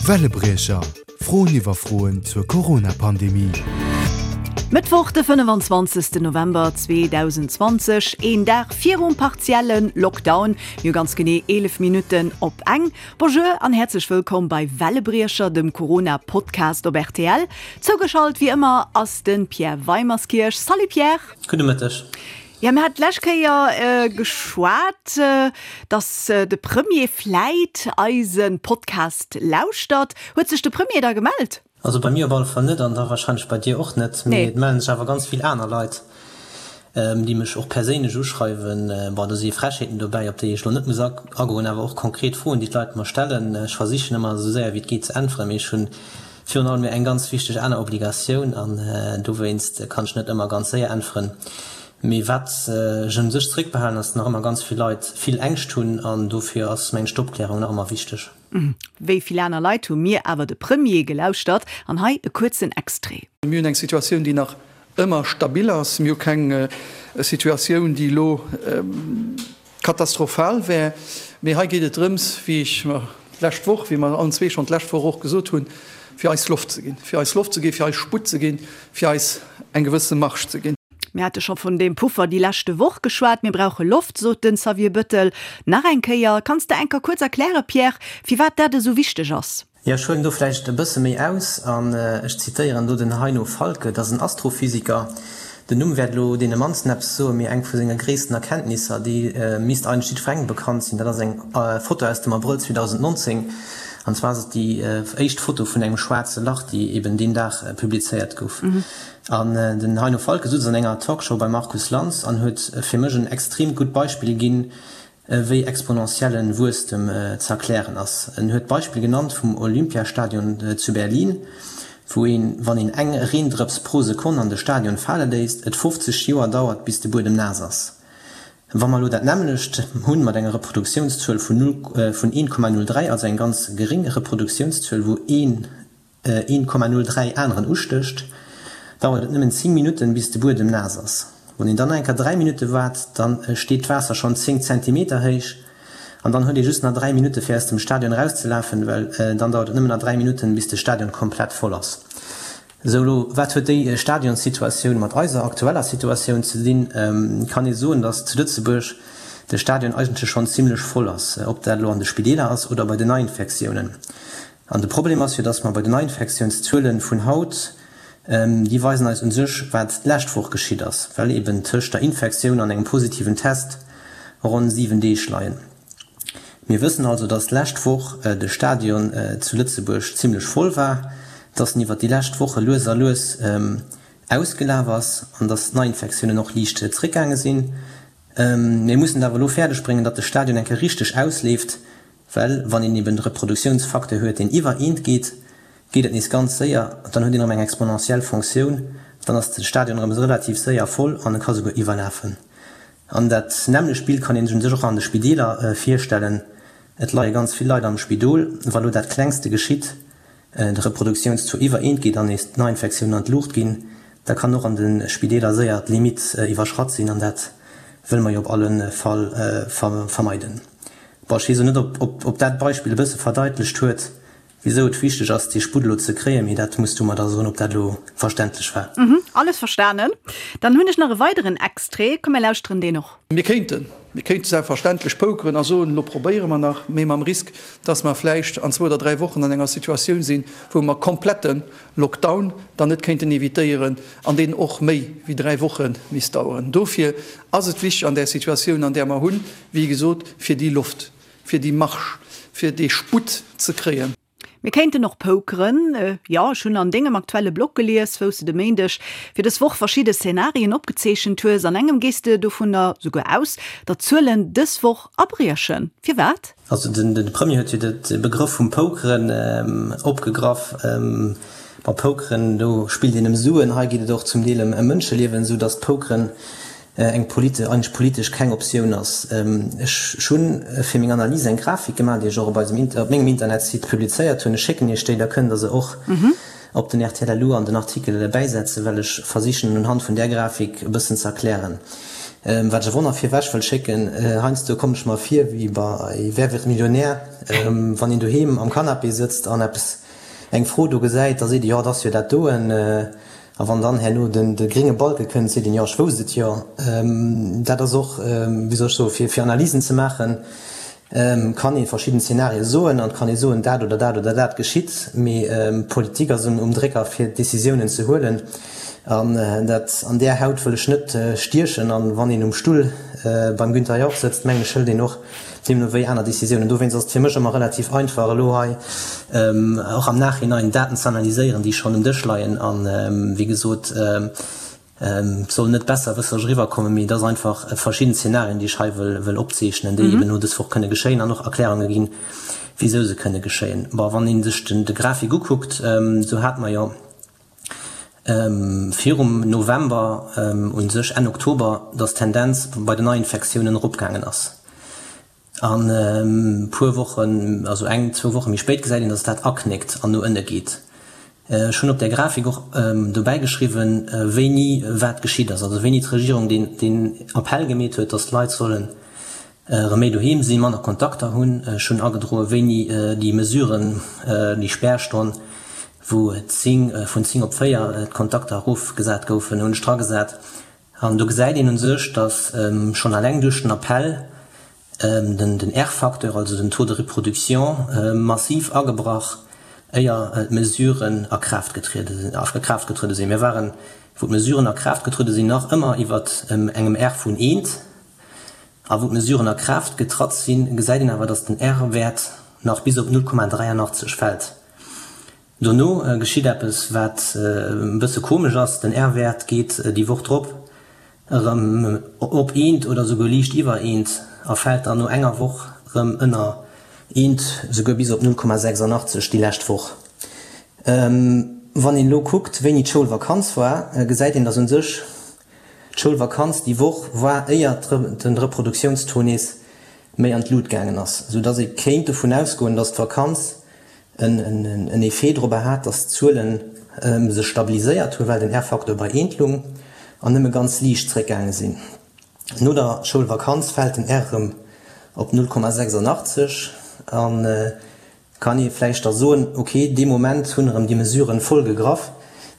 Wellebriecher, Froen iwwer Froen zur Corona-Pandemie. Mëttwoch de 25 November 2020, een Dag virum partielle Lockdown, mir hu ganz genee 11 Minutten op eng. Bonjour an häerzlech wëllkomm bei Wellebriecher, dem Corona-Podcast op rtl. Zougeschalt wéi ëmmer ass de Pierre Weimerskirch. Salut Pierre! Gudde Mëtteg. Jo, mir haten d'lescht Kéier geschwat, dass de Premier vläit eise Podcast lauschtert. Huet sech de Premier da gemellt? Also bei mir op alle Fall net an da warscheinlech bei dir och net. Mee et mellen sech awer ganz vill aner Leit, déi mech och perséinlech uschreiwen. Bon, do si Frechheeten dobäi, op déi ech elo net muss agoen, awer och konkret Froen, déi d'Leit mer stellen. Ech versichen ëmmer esou séier wéi et geet ze äntweren, mee ech hunn virun allem eng ganz wichteg aner Obligatioun an dowéinst kann ech net ëmmer ganz séier äntweren. Mee wat ech un sech zeréckbehalen, ass, nach ëmmer ganz vill Leit vill Ängscht hunn an dofir ass mengen ech d'Opklärung nach ëmmer wichteg. Wéi vill aner Leit hu mir awer de Premier gelauschtert an hei e kuerzen Extrait. Mir hunn eng Situatioun, déi nach ëmmer stabil ass. Mir hu keng Situatioun, déi elo Katastrophal wär. Mee hei geet et drëms, wéi ech mer d'lescht Woch, wéi mer allen zwee schonn d'lescht Woch och gesot hunn, fir eis Loft ze ginn, fir eis Loft ze ginn, fir eis Sputt ze ginn, fir eis eng gewësse Marge ze ginn. Mir hate scho vun deem Puffer déi leschte Woch geschwat. Mir brauche Loft, sot den Xavier Bettel nach eng Kéier. Kanns de enker kuerz erklären, Pierre, firwat dat esou wichteg ass? Jo, ech huelen do vläicht e bësse méi aus an ech zitéieren do den Heino Falcke, dat ass en Astrophysiker. Den Numm wäert elo deene mannsten eppes soen, mee eng vu senge gréissten Erkenntnisser, déi misst eigentlech jiddwerengem bekannt sinn, dat ass eng Foto aus dem Abrëll 2019, an zwar ass et déi éischt Foto vun engem schwaarze Lach, déi eben deen Dag publizéiert gouf. An den Heino Falcke sutz an enger Talkshow beim Markus Lanz an huet fir mech en extreemt gutt Beispill ginn, wéi exponentiellen Wuesstem ze erklären ass. En huet d'Beispill genannt vum Olympiastadion zu Berlin, wou een, wann een eng Reendrëps pro Sekonn an de Stadion fale léisst, et 50 Joer dauert bis de Buedem naass ass. Wa mer elo dat nämmlecht hunn mat enger Reproduktiounszuel vun 1,03, also eng ganz geréng Reproduktiounszuel, wou een 1,03 aneren ustécht, dauert et nëmmen 10 Minutten, bis de Buedem naass ass. Wann een dann nach eng Kéier 3 Minutte waart, da steet d'Waasser schonn 10 Zentimeter héich an dann huet ee just nach 3 Minutte fir aus dem Stadion erauszelafen, well dann dauert et nëmmen nach 3 Minutten, bis de Stadion komplett voll ass. Sou, elo wat huet déi Stadionssituatioun mat eiser aktueller Situatioun ze dinn? Kann ee soen, datt zu Lëtzebuerg de Stadion eigentlech schonn zimmlech voll ass, ob dat elo an de Spideeler ass oder bei den Neiinfektiounen. An de Problem ass jo, dass mer bei den Neiinfektiounszuele vun haut, déi weisen eis u sech, wat d'lescht Woch geschitt ass, well eben tëscht der Infektioun an engem positiven Test ronn 7 Deeg leien. Mir wëssen also, dass d'lescht Woch de Stadion zu Lëtzebuerg zimlech voll war, dass en iwwert déi lescht Woche lues a lues ausgelaf ass an dass d'Neiinfektiounen och liicht zréckgaange sinn. Mir mussen et awer elo fäerdegbréngen, datt de Stadion eng Kéier richteg ausleeft, Well wann een eben de Reproduktiounsfacteur huet, deen iwwer eent geet, geet et nees ganz séier, dann huet een erëm eng exponentiell Fonctioun, dann ass de Stadion erëm relativ séier voll an e ka souguer iwwerlafen. An dat nämmlecht Bild kann een sech un sech och an de Spideeler virstellen. Et leie ganz vill Leit am Spidol. Wa lo dat Klengste geschitt, de Reproduktiounstaux iwwer eent geet an nees d'Neiinfektiounen an d'Luucht ginn, da kann och an de Spideeler séier d'Limitt iwwerschratt sinn an dat wëlle mer jo op alle Fall vermeiden. Bon, ech weess elo net, ob dat Beispill e bësse verdeitlecht huet, wisou et wichteg ass, dee Sputt elo ze kréien, mee dat muss du mer da soen, ob dat elo verständlech war. Alles verstanen. Dann hunn ech nach e weideren Extrait. Komm, mir lauschteren deen och. Mir kéinten, mir kéinte selbstverständlech pokeren a soen, elo probéiere mer nach, mee mam Risk, dass mer vläicht an zwou oder dräi Wochen an enger Situatioun sinn, wou mer komplette Lockdown dann net kéinten evitéieren an deen och méi wéi dräi Woche misst daueren. Dofir ass et wichteg an där Situatioun, an där mer hunn, wéi gesot, fir déi Loft, fir déi Marge, fir dee Sputt ze kréien. Mir kéinten och pokeren. Jo, ech hunn an dengem aktuelle Blog gelies, wou s de de Méindeg fir dës Woch verschidde Szenarien opgezeechent hues. An engem gees de dovunner souguer aus, datt d'Zuelen dës Woch abriechen. Firwat? Also de Premier huet jo de Begrëff vum Pokeren opgegraff. Bei Pokeren, do spillt een ëm Suen, hei geet et och zum Deel ëm Mënscheliewen, esou datt Pokeren eng eigentlech politesch keng Optioun ass. Ech hu fir meng Analys eng Grafik gemaach, déi ech och op eisem op mengem Internetsite publizéiert hunn. Ech schécken Iech déi, da kënnt Der se och op den rtl LU an den Artikel bäisetzen, well ech versichen unhand vun där Grafik e bëssen ze erklären. Wat ech awer och nach virwech wëll schécken, Heiansdo kommen ech mer vir wéi bei Wer wird Millionär, wann een doheem am Canapé sëtzt an eppes, eng Fro do gesäit, da seet ee jo, et ass jo dat doen. A wann dann herno den de grénge Balke kënnt, seet een jo, ech wousst et jo. Dat ass och, wéi soll ech soen, fir fir Analysen ze maachen, kann ee verschidden Zenarie soen an et kann ee soen, dat oder dat oder dat geschitt, mee d'Politik ass um Drécker fir Décisiounen ze huelen an dat an där Haut wëll ech net stiechen. An wann een um Stull beim Günther Jauch sëtzt, mengen ech, hëlt een och deemno wéi aner Décisiounen. Dowéinst ass et fir mech ëmmer relativ einfach elo hei och am Nachhinein Daten ze analyséieren, déi schonn um Dësch leien an, wéi gesot, Et soll net besserwësseresch eriwwerkommen, mee et ass einfach verschidden Zenarien, déi ech hei wëll opzeechnen, déi eben elo dës Woch kënne geschéien an och Erklärunge ginn, wisou se kënne geschéien. Bon, wann ee sech de Grafik ukuckt, esou hate mer jo virum November, u sech Enn Oktober, datt d'Tendenz bei den Neiinfektiounen eropgaangen ass. An e puer Wochen, also eng, zwou Woche méi spéit gesäit een, datt dat aknéckt an no ënne geet. Ech hunn op där Grafik och dobäi geschriwwen, wéini wat geschitt ass, also wéini d'Regierung deen Appell gemeet huet, datt d'Leit sollen erëm méi doheem sinn, manner Kontakter hunn. Ech hunn agedroe wéini déi Mesuren, déi Spärstonn, wou 10, vun 10 op 4 d'Kontakter erofgesat goufen, hunn ech dragesat. An do gesäit een u sech, datt schonn alleng duerch den Appell den R-Facteur, also den Taux de reproduction, massiv agebrach, éier d'Mesuren a Kraaft getruede sinn. Mir waren, wou d'Mesuren a Kraaft getruede sinn, nach ëmmer iwwer engem R vun eent. A wou d'Mesuren a Kraaft getratt sinn, gesäit een awer, datt den R-Wäert nach bis op 0,83 fält. Dono geschitt eppes, wat e bësse komesch ass, Den R-Wäert geet déi Woch drop erëm op eent oder souguer liicht iwwer eent a fält dann no enger Woch erëm ënner eent, souguer bis op 0,86 déi lescht Woch. Wann een elo kuckt, wéini d'Schoulvakanz war, gesäit een, dass u sech d'Schoulvakanz déi Woch war, éier de Reproduktiounstaux nees méi an d'Lut gaangen ass, soudass ee kéint dovun ausgoen, dass d'Vakanz en Effet dorobber hat, dass d'Zuele sech stabiliséiert hunn, well den R-Facteur bei eent lung an nëmme ganz liicht zréckgaange sinn. No der Schoulvakanz fält den R erëm op 0,86 a kann ee vläicht da soen, ok, dee Moment hunn erëm déi Mesuren voll gegraff,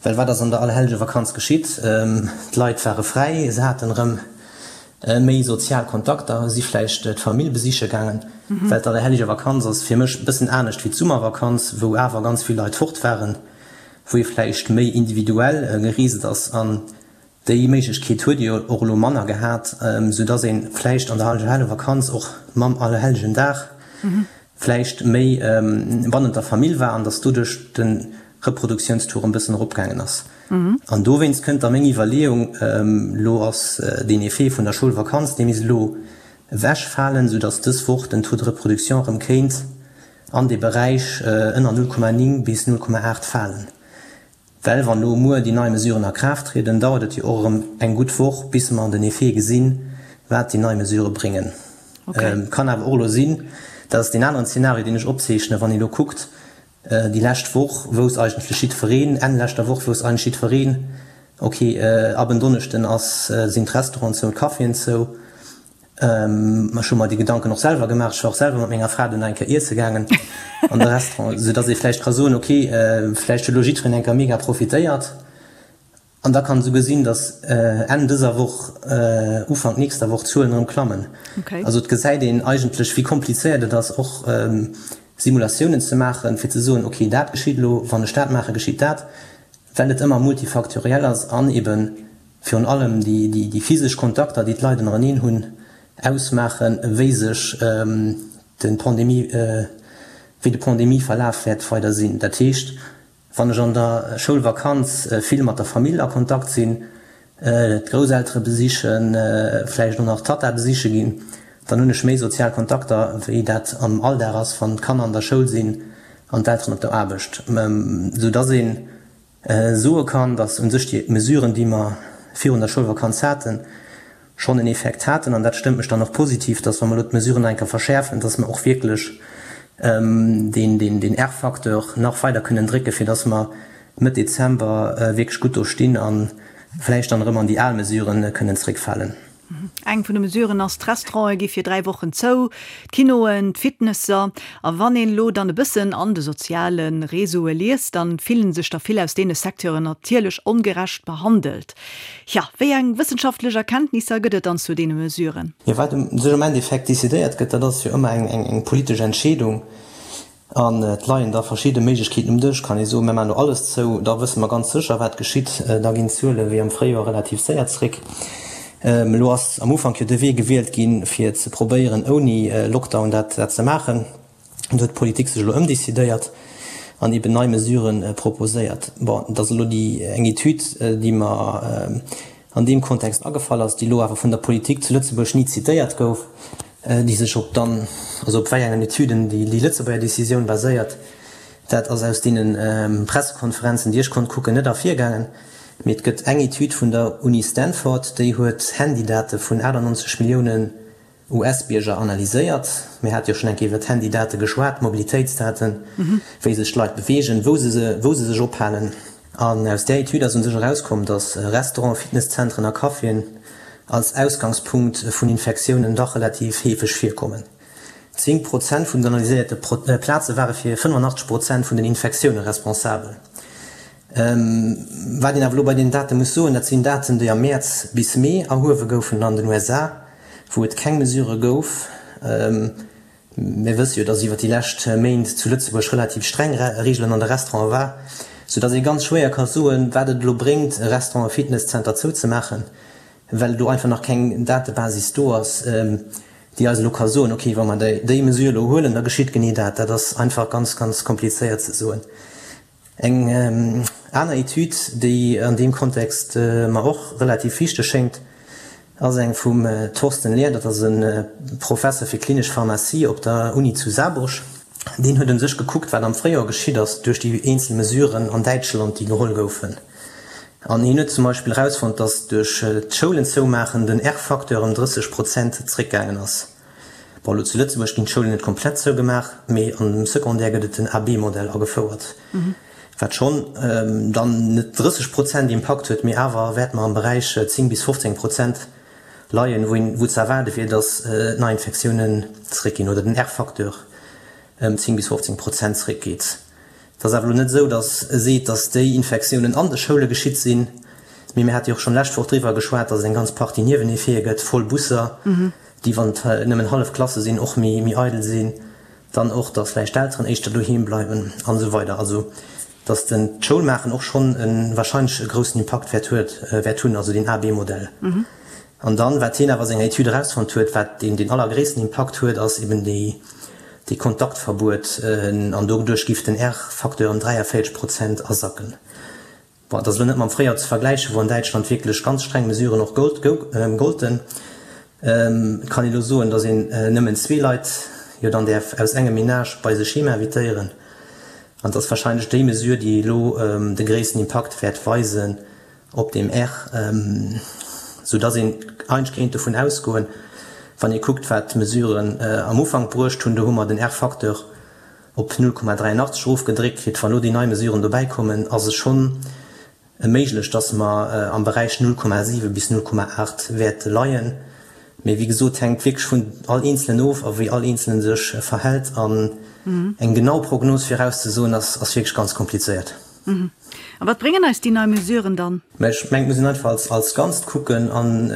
well wat ass an der Allerhellgevakanz geschitt? D'Leit ware fräi, se haten erëm Méi sozial Kontakter, si vläicht d'Famill besiche gaangen, well d'Allerhellige Vakanz ass fir mech e bëssen anescht wéi d'Summervakanz, wou awer ganz vill Leit fort waren, wou ee vläicht méi individuell gereest ass. An déi Méiglechkeet huet ee jo och elo manner gehat, sou dass ee vläicht an der Allerhelle Vakanz och mam Allerhellegen Dag vläicht méi bannent der Famill war an dass doduerch de Reproduktiounstour en bëssen eropgaangen ass. An dowéinst kënnt da meng Iwwerleeung, elo ass deen Effet vun der Schoulvakanz, dee misst elo ewechfalen, soudass dës Woch den Taux de reproduction erëm kéint an dee Beräich ënner 0,9 bis 0,8 falen. Well wann elo muer déi nei Mesuren a Kraaft trieden, dauert et jo och erëm eng gutt Woch, bis mer den Effet gesinn, wat déi nei Mesurë bréngen. Kann awer och elo sinn, dat ass deen aneren Zeenario, deen ech opzeechnen, wann ee elo kuckt, Déi lescht Woch wousst eigentlech jiddwereen, Enn leschter Woch wousst eigentlech jiddwereen, ok, ab en Donneschden ass, sinn d'Restauranten zou, d'Caféen zou. Ech hu mer déi Gedanken och selwer gemaach. Ech war och selwer mat menger Fra dunn nach eng Kéier iesse gaangen an de Restaurant, soudass ee vläicht ka soen, ok, vläicht huet elo jiddwereen eng Kéier mega profitéiert. An da kann esouguer sinn, datt Enn dëser Woch, Ufank nächster Woch d'Zuelen erëm klammen. Also et gesäit een eigentlech, wéi komplizéiert et ass, och Simulatiounen ze maachen, fir ze soen, ok, dat geschitt elo, wann ech dat maachen, geschitt dat, well et ëmmer multifaktoriell ass an ebe virun allem déi physesch Kontakter, déi d'Leit ënnereneen hunn, ausmaachen, wéi sech de Pandemie, wéi de Pandemieverlaf wäert weider sinn. Dat heescht, Wann ech an der Schoulvakanz vill mat der Famill a Kontakt sinn, d'Grousseltere besichen, vläicht och nach d'Tatta besiche ginn, dann hunn ech méi sozial Kontakter, wéi dat am Alldag ass, wann d'Kanner an der Schoul sinn an d'Elteren op der Aarbecht. Sou dass ee soe kann, dass u sech déi Mesuren, déi mer virun der Schoulvakanz haten, schonn en Effekt haten, an dat stëmmt mech dann och positiv, dass wa mer elo d'Mesuren nach eng Kéier verschäerfen, dass mer och wierklech deen R-Facteur nach weider kënnen drécken, fir dass mer Mëtt Dezember wierklech gutt do stinn a vläicht dann erëm an déi al Mesuren kënnen zréckfalen. Eng vun de Mesuren ass, d'Restaurante gi fir 3 Wochen zou, d'Kinoen, d'Fitnesser. A wann een elo dann e bëssen an de soziale Réseaue liest, dann fillen sech der vill aus deene Secteuren natierlech ongerecht behandelt. Tja, wéi eng wëssenschaftlech Erkenntnisser gëtt et dann zu deene Mesuren? Jo, wat sech am Endeffekt decidéiert gëtt, dat ass jo ëmmer eng politesch Entscheedung. An et leien da verschidde Méiglechkeeten um Dësch. Kann ee soen, mir maachen elo alles zou, da wësse mer ganz sécher, wat geschitt. Da ginn d'Zuele wéi am Fréijoer relativ séier zréck. Elo ass am Ufank jo de Wee gewielt ginn, fir ze probéieren, ouni Lockdown dat ze maachen. Do huet d'Politik sech elo ëmdecidéiert an eben nei Mesurë proposéiert. Bon, et ass elo déi eng Etüd, déi mer an deem Kontext agefall ass, déi elo awer vun der Politik zu Lëtzebuerg ni zitéiert gouf, déi sech op dann, also op wei engen Etüden déi déi Lëtzebuerger Décisioun baséiert, dat ass aus deene Pressekonferenzen, déi ech konnt kucken, net ervirgaangen. Mee et gëtt eng Etüd vun der Uni Stanford, déi huet Handydate vun 98 Milliounen US-Bierger analyséiert. Mir hate jo schonn eng Kéier iwwer d'Handydate geschwat, d'Mobilitéitsdaten, wéi sech d'Leit beweegen, wou se se, wou se sech ophalen. An aus där Etüd ass un sech erauskomm, datt Restauranten, Fitnesszentren a Caféen als Ausgangspunkt vun Infektiounen dach relativ heefeg virkommen. 10 Prozent vun den analyséierte Plaze ware fir 85 Prozent vun den Infektioune responsabel. Wat een awer elo bei deenen Date muss soen, dat sinn Daten, déi am Mäerz bis Mee erhuewe goufen an den USA, wou et keng Mesure gouf. Mir wësse jo, dass iwwer déi lescht Méint zu Lëtzebuerg relativ streng Reegelen an de Restaurante war, soudass ee ganz schwéier ka soen, wat et elo bréngt, e Restaurant, e Fitnesszenter zouzemaachen, well do einfach nach keng Datebasis do ass, déi eis elo ka soen, okay, wa mer déi Mesure elo huelen, da geschitt genee dat. Dat ass einfach ganz, ganz komplizéiert ze soen. Eng aner Etüd, déi an deem Kontext mer och relativ wichteg schéngt, ass eng vum Thorsten Lehr, dat ass e Professer fir klinesch Pharmazie op der Uni zu Saarburg. Deen huet un sech gekuckt, wat am Fréijoer geschitt ass duerch déi eenzel Mesuren an Däitschland, déi geholl goufen. An hien huet zum Beispill erausfonnt, datt duerch d'Schoulen zoumaachen den R-Facteur ëm 30 Prozent zréckgaangen ass. Bon, elo zu Lëtzebuerg ginn d'Schoulen net komplett zougemaach, mee an dem Secondaire gëtt et den AB-Modell agefouert, wat schonn dann net 30 Prozent Impakt huet, mee awer wäerte mer am Beräich 10 bis 15 Prozent leien, wou een, wou ze erwaarde wier, datt d'Neiinfektiounen zeréckginn oder den R-Facteur ëm 10 bis 15 Prozent zeréckgeet. Et ass awer elo net esou, datt e seet, datt déi Infektiounen an de Schoule geschitt sinn, mee mir hate jo och schonn d'lescht Woch driwwer geschwat, datt et eng ganz Partie Nieweneffete gëtt, voll Busser, déi, wann et nëmmen hallef Klasse sinn, och méi eidel sinn, dann och, datt vläicht d'Elteren éischter doheem bleiwen an esou weider. Also datt den d'Schoulmaachen och schonn e wahrscheinlech e groussen Impakt wäert huet, wäert hunn, also deen A-B-Modell. An dann, wat hien awer a senger Etüd erausfonnt huet, wat deen deen allergréissten Impakt huet, ass eben déi, dee Kontaktverbuet, an doduerch giff den R-Facteur ëm 43 Prozent asacken. Bon, et ass elo net mam Fréijoer ze vergläichen, wou an Däitschland wierklech ganz streng Mesuren och golten. Et kann ee elo soen, datt een nëmmen zwee Leit jo dann däerf aus engem Menage bei sech heem invitéieren. An et ass warscheinlech déi Mesure, déi elo de gréissten Impakt wäert weisen op deem R, sou datt een eigentlech kéint dovun ausgoen, wann ee kuckt, wat d'Mesuren am Ufank bruecht hunn, do hu mer den R-Facteur op 0,83 erofgedréckt kritt. Wann elo déi nei Mesuren dobäi kommen, ass et schonn méiglech, datt mer am Beräich 0,7 bis 0,8 wäerte leien. Mee wéi gesot, hänkt wierklech vun all Eenzelen of a wéi all Eenzele sech verhält. An eng genau Prognos virauszesoen, ass wierklech ganz komplizéiert. A wat bréngen eis déi nei Mesuren dann? Mä ech mengen, et muss een einfach als Ganzt kucken an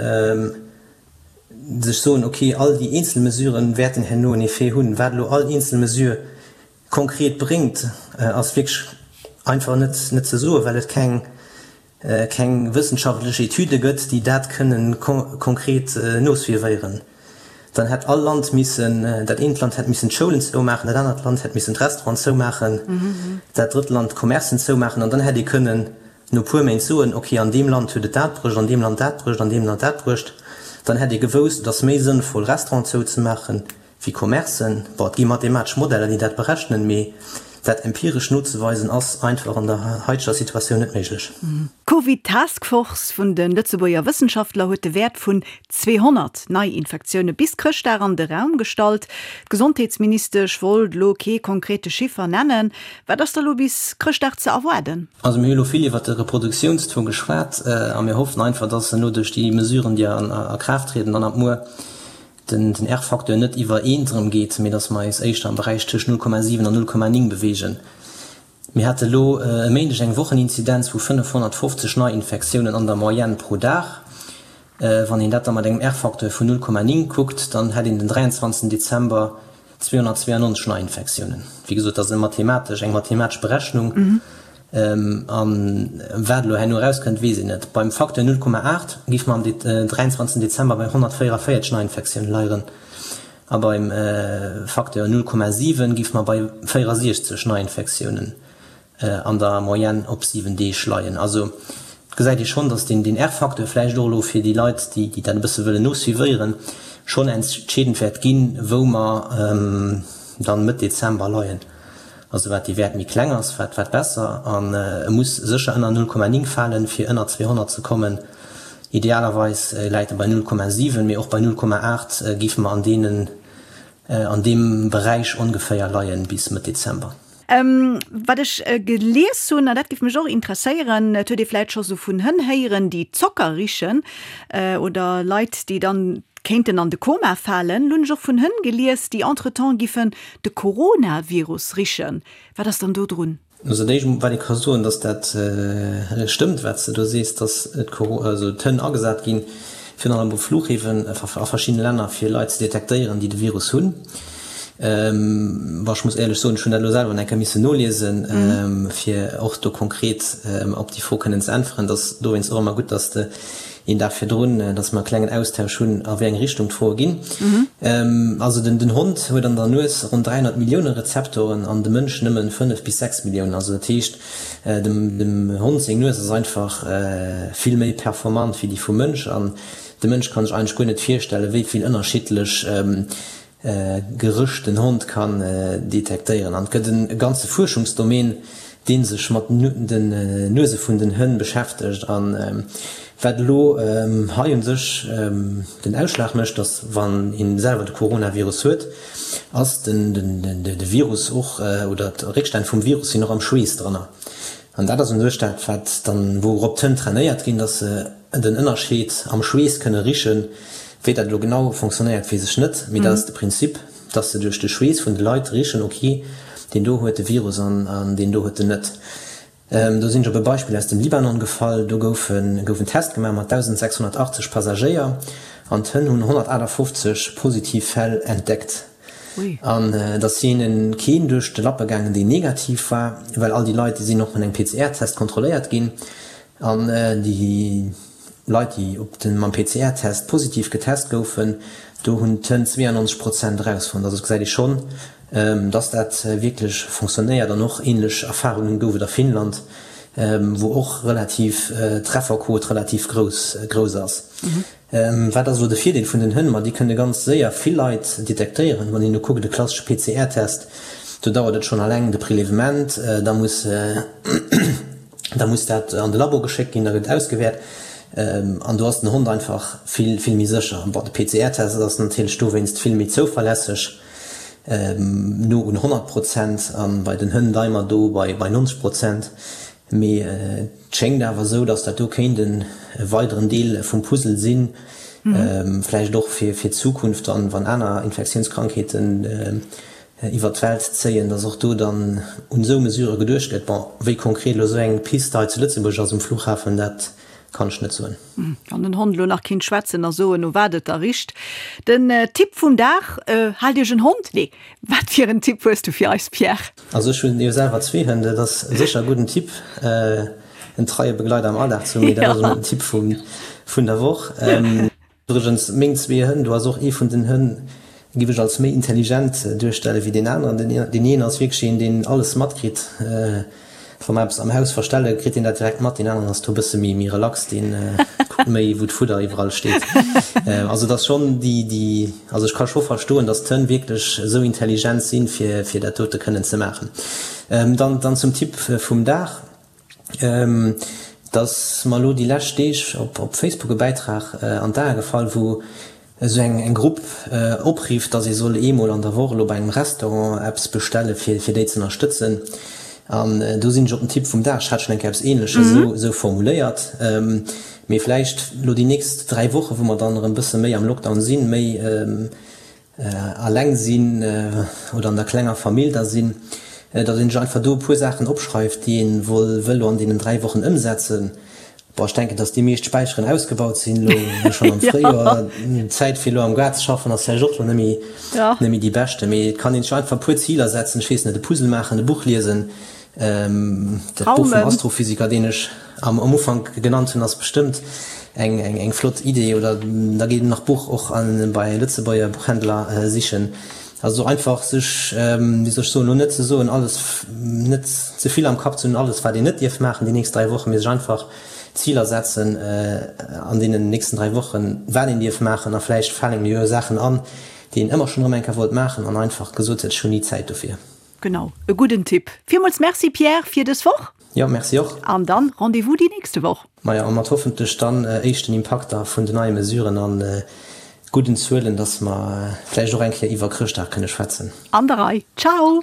sech soen, okay, all déi eenzel Mesuren wäerten herno en Effet hunn. Wat elo all eenzel Mesure konkret bréngt, ass wierklech einfach net net ze soen, well et keng keng wëssenschaftlech Etüde gëtt, déi dat kënnen konkret nosuivéieren. Dann hätt all Land missen, dat eent Land hätt missen d'Schoulen zoumaachen, dat anert Land hätt missen d'Restauranten zoumaachen, dat drëtt Land d'Commercen zoumaachen an dann hätt ee kënnen no puer Méint soen, ok, an deem Land huet et dat bruecht, an deem Land dat bruecht, an deem Land dat bruecht. Dann hätt ee gewousst, et ass méi sënnvoll Restauranten zouzemaachen wéi Commercen. Bon, et gi mathematesch Modeller, déi dat berechnen, mee. Dat empiresch nozeweisen ass einfach an der haiteger Situatioun net méiglech. D'Covid Task Force vun de Lëtzebuerger Wëssenschaftler huet de Wäert vun 200 Neiinfektioune bis Chrëschtdag an de Raum gestallt. D'Gesondheetsministesch wollt elo kee konkrete Chiffer nennen. Wat ass da lo bis Chrëschtdag ze erwaarden? Also mir hu elo vill iwwert de Reproduktiounstaux geschwat a mir hoffen einfach, dass elo duerch déi Mesuren, déi a Kraaft trieden dann ab muer, den R-Facteur net iwwer eent erëm geet, mee dass mer eis éischter am Beräich tëscht 0,7 an 0,9 beweegen. Mir hate elo e Méindeg eng Wocheninzidenz vu 550 Neiinfektiounen an der Moyenne pro Dag. Wann een dat da mat engem R-Facteur vun 0,9 kuckt, dann hätt een den 23 Dezember 292 Neiinfektiounen. Wéi gesot, dat ass e mathematesch, eng mathematesch Berechnung. A wat elo herno erauskënnt, weess een net. Beim Facteur 0,8 géife mer am 23 Dezember bei 144 Neiinfektioune leieren a beim Facteur 0,7 géife mer bei 64 Neiinfektiounen an der Moyenne op 7 Deeg leien. Also et gesäit ee schonn, datt deen R-Facteur vläicht och elo fir déi Leit, déi dat e bësse wëllen nosuivéieren, schonn entscheedend wäert ginn, wou mer dann Mëtt Dezember leien. Also wat dee Wäert méi kleng ass, wat wat besser. An e muss sécher ënner 0,9 falen, fir ënner 200 ze kommen. Idealerweis läit e bei 0,7, mee och bei 0,8 géife mer an deenen, an deem Beräich ongeféier leien bis Mëtt Dezember. Wat ech gelies hunn, an dat géif mech och interesséieren, et huet ee vläit scho sou vun Hënn héieren, déi Zocker richen, oder Leit, déi dann kéinten an de Koma falen. Lo hunn ech och vun Hënn gelies, déi entretemps giffen de Coronavirus richen. Wat ass dann do drun? Also dat éischt wat ee ka soen, datt dat stëmmt wat s de do sees, datt d'Hënn agesat ginn, virun allem op Fluchhäfen a verschiddene Länner, fir Leit ze detektéieren, déi de Virus hunn. Bon, ech muss éierlech soen, ech hunn dat elo selwer nach eng Kéier missen noliesen, fir och do konkret op déi Fro kënnen ze äntweren. Et ass dowéinst och ëmmer gutt, datt s de een Dag virdrun, dass mer e klengen Austausch hunn, a wéi eng Richtung d'Froe ginn. Also den Hond huet an der Nues ronn 300 Millioune Rezeptoren an de Mënsch nëmmen 5 bis 6 Milliounen. Also dat heescht, dem Hond seng Nues ass einfach vill méi performant wéi déi vum Mënsch. An de Mënsch kann sech eigentlech guer net virstellen, wéi vill ënnerschiddlech Geréch den Hond kann detektéieren. An et gëtt e ganze Fuerschungsdomaine, dee sech mat den Nuese vun den Hënn beschäftegt. A wat elo hei u sech den Ausschlag mécht, ass, wann ee selwer de Coronavirus huet, ass de Virus och, oder d'Réckstänn vum Virus sinn och am Schweess dranner. An dat ass u sech dat, wat dann, wourop d'Hënn trainéiert ginn, dass se den Ënnerscheed am Schweess kënne richen. Wéi dat elo genau fonctionnéiert, weess ech net, mee dat ass de Prinzip, dass se duerch de Schweess vun de Leit richen, ok, deen do huet de Virus an deen do huet en net. Do sinn ech op e Beispill aus dem Libanon gefall, do gouf gouf en Test gemaach mat 1.680 Passagéier an d'Hënn hunn 158 positiv Fäll entdeckt. An et ass hinne keen duerch de Lappe gaangen, deen negativ war, well all déi Leit, déi sinn och mat engem PCR-Test kontrolléiert ginn. An déi Leit, déi op de mam PCR-Test positiv getest goufen, do hunn d'Hënn 92 Prozent erausfonnt. Also et gesäit ee schonn, dass dat wierklech fonctionnéiert. An och änlech Erfarunge gouf et a Finnland, wou och relativ d'Trefferquot relativ grouss grouss ass. Wat ass elo de Virdeel vun den Hënn? Ma déi kënne ganz séier vill Leit detektéieren. Wann een elo kuckt, e klassesche PCR-Test, do dauert et schonn alleng de Prelèvement, da muss da muss dat an de Labo geschéckt ginn, da gëtt ausgewäert an do ass den Hond einfach vill, vill méi sécher. Bon, de PCR-Test ass natierlech dowéinst vill méi zouverlässeg, no un 100 Prozent, a bei den Hënn leie mer do bei 90 Prozent. Mee et schéngt awer esou, datt dat do kéint e weideren Deel vum Puzzle sinn, vläicht och fir d'Zukunft dann, wann aner Infektiounskrankheeten iwwert d'Welt zéien, datt och do dann un esou Mesurë geduecht gëtt. Bon, wéi konkret elo esou eng Pist hei zu Lëtzebuerg ass um Flughafen, dat kann ech net soen. Wann den Hond elo nach kinnt schwätzen a soen, no wat et da richt. Den Tipp vum Dag, Haalt Iech en Hond? Nee, wat fir en Tipp hues du fir eis, Pierre? Also ech hunn jo selwer zwee Hënn, dat ass sécher e gudden Tipp, en treie Begleiter am Alldag ze hunn, mee dat ass elo net den Tipp vun der Woch. Iwwregens, meng zwee Hënn, do ass och ee vun den Hënn, giff ech als méi intelligent duerstelle wéi deen aneren. Deen een ass wierklech een, deen alles matkritt. Wa mer eppes am Haus verstelle kritt een dat direkt mat, deen aneren ass do e bësse méi méi relax, deen kuckt méi wou d'Fudder iwwerall steet. Also et ass schonn déi déi, also ech ka scho verstoen, datt d'Hënn wierklech esou intelligent sinn, fir fir dat dote kënnen ze maachen. Dann dann zum Tipp vum Dag, Et ass mer elo déi lescht Deeg op op Facebook e Bäitrag an d'Ae gefall, wou esou eng eng Grupp oprifft, dass ee soll eemol an der Woch elo bei engem Restaurant eppes bestelle fir fir déi ze ënnerstëtzen. An do sinn ech op den Tipp vum Dag, ech hat schonn eng Kéier eppes Ähnleches esou esou formuléiert, mee vläicht elo déi nächst 3 Woche wou mer dann erëm bësse méi am Lockdown sinn, méi alleng sinn oder an der klenger Famill da sinn, datt een sech einfach do e puer Saachen opschreift, déi een wëll elo an deenen 3 Wochen ëmsetzen. Bon, ech denken, datt déi meescht Späicheren ausgebaut sinn elo schonn am Fréijoer. D'Zäit fir elo am Gaart ze schaffen ass vläicht och elo net méi, net méi déi beschte. Mee et kann een sech einfach e puer Ziler setzen, ech weess net, e Puzzle maachen, e Buch liesen. Dat Buch vum Astrophysiker, deen ech am Ufank genannt hunn, ass bestëmmt eng, eng, eng flott Idee. Oder da geet een nach Buch och an, bei Lëtzebuerger Buchhändler sichen. Also einfach sech, wéi soll ech soen, elo net ze soen, alles, net ze vill am Kapp ze hunn, alles wat een net dierf maachen déi nächst 3 Wochen, mee sech einfach Ziler setzen an deenen nächsten 3 Wochen, wat een dierf maachen a vläicht falen engem jo Saachen an, déi een ëmmer schonn erëm eng Kéier wollt maachen an einfach gesot huet, ech hunn ni Zäit dofir. Genau, e gudden Tipp. Villmools Merci Pierre fir dës Woch. Jo, Merci och. An dann Rendez-vous déi nächste Woch. Majo, a mat hoffentlech dann éischten Impakter vun den neie Mesuren an gudden Zuelen, dass mer vläicht och eng Kéier iwwer Chrëschtdag kënne schwätzen. An der Rei. Ciao!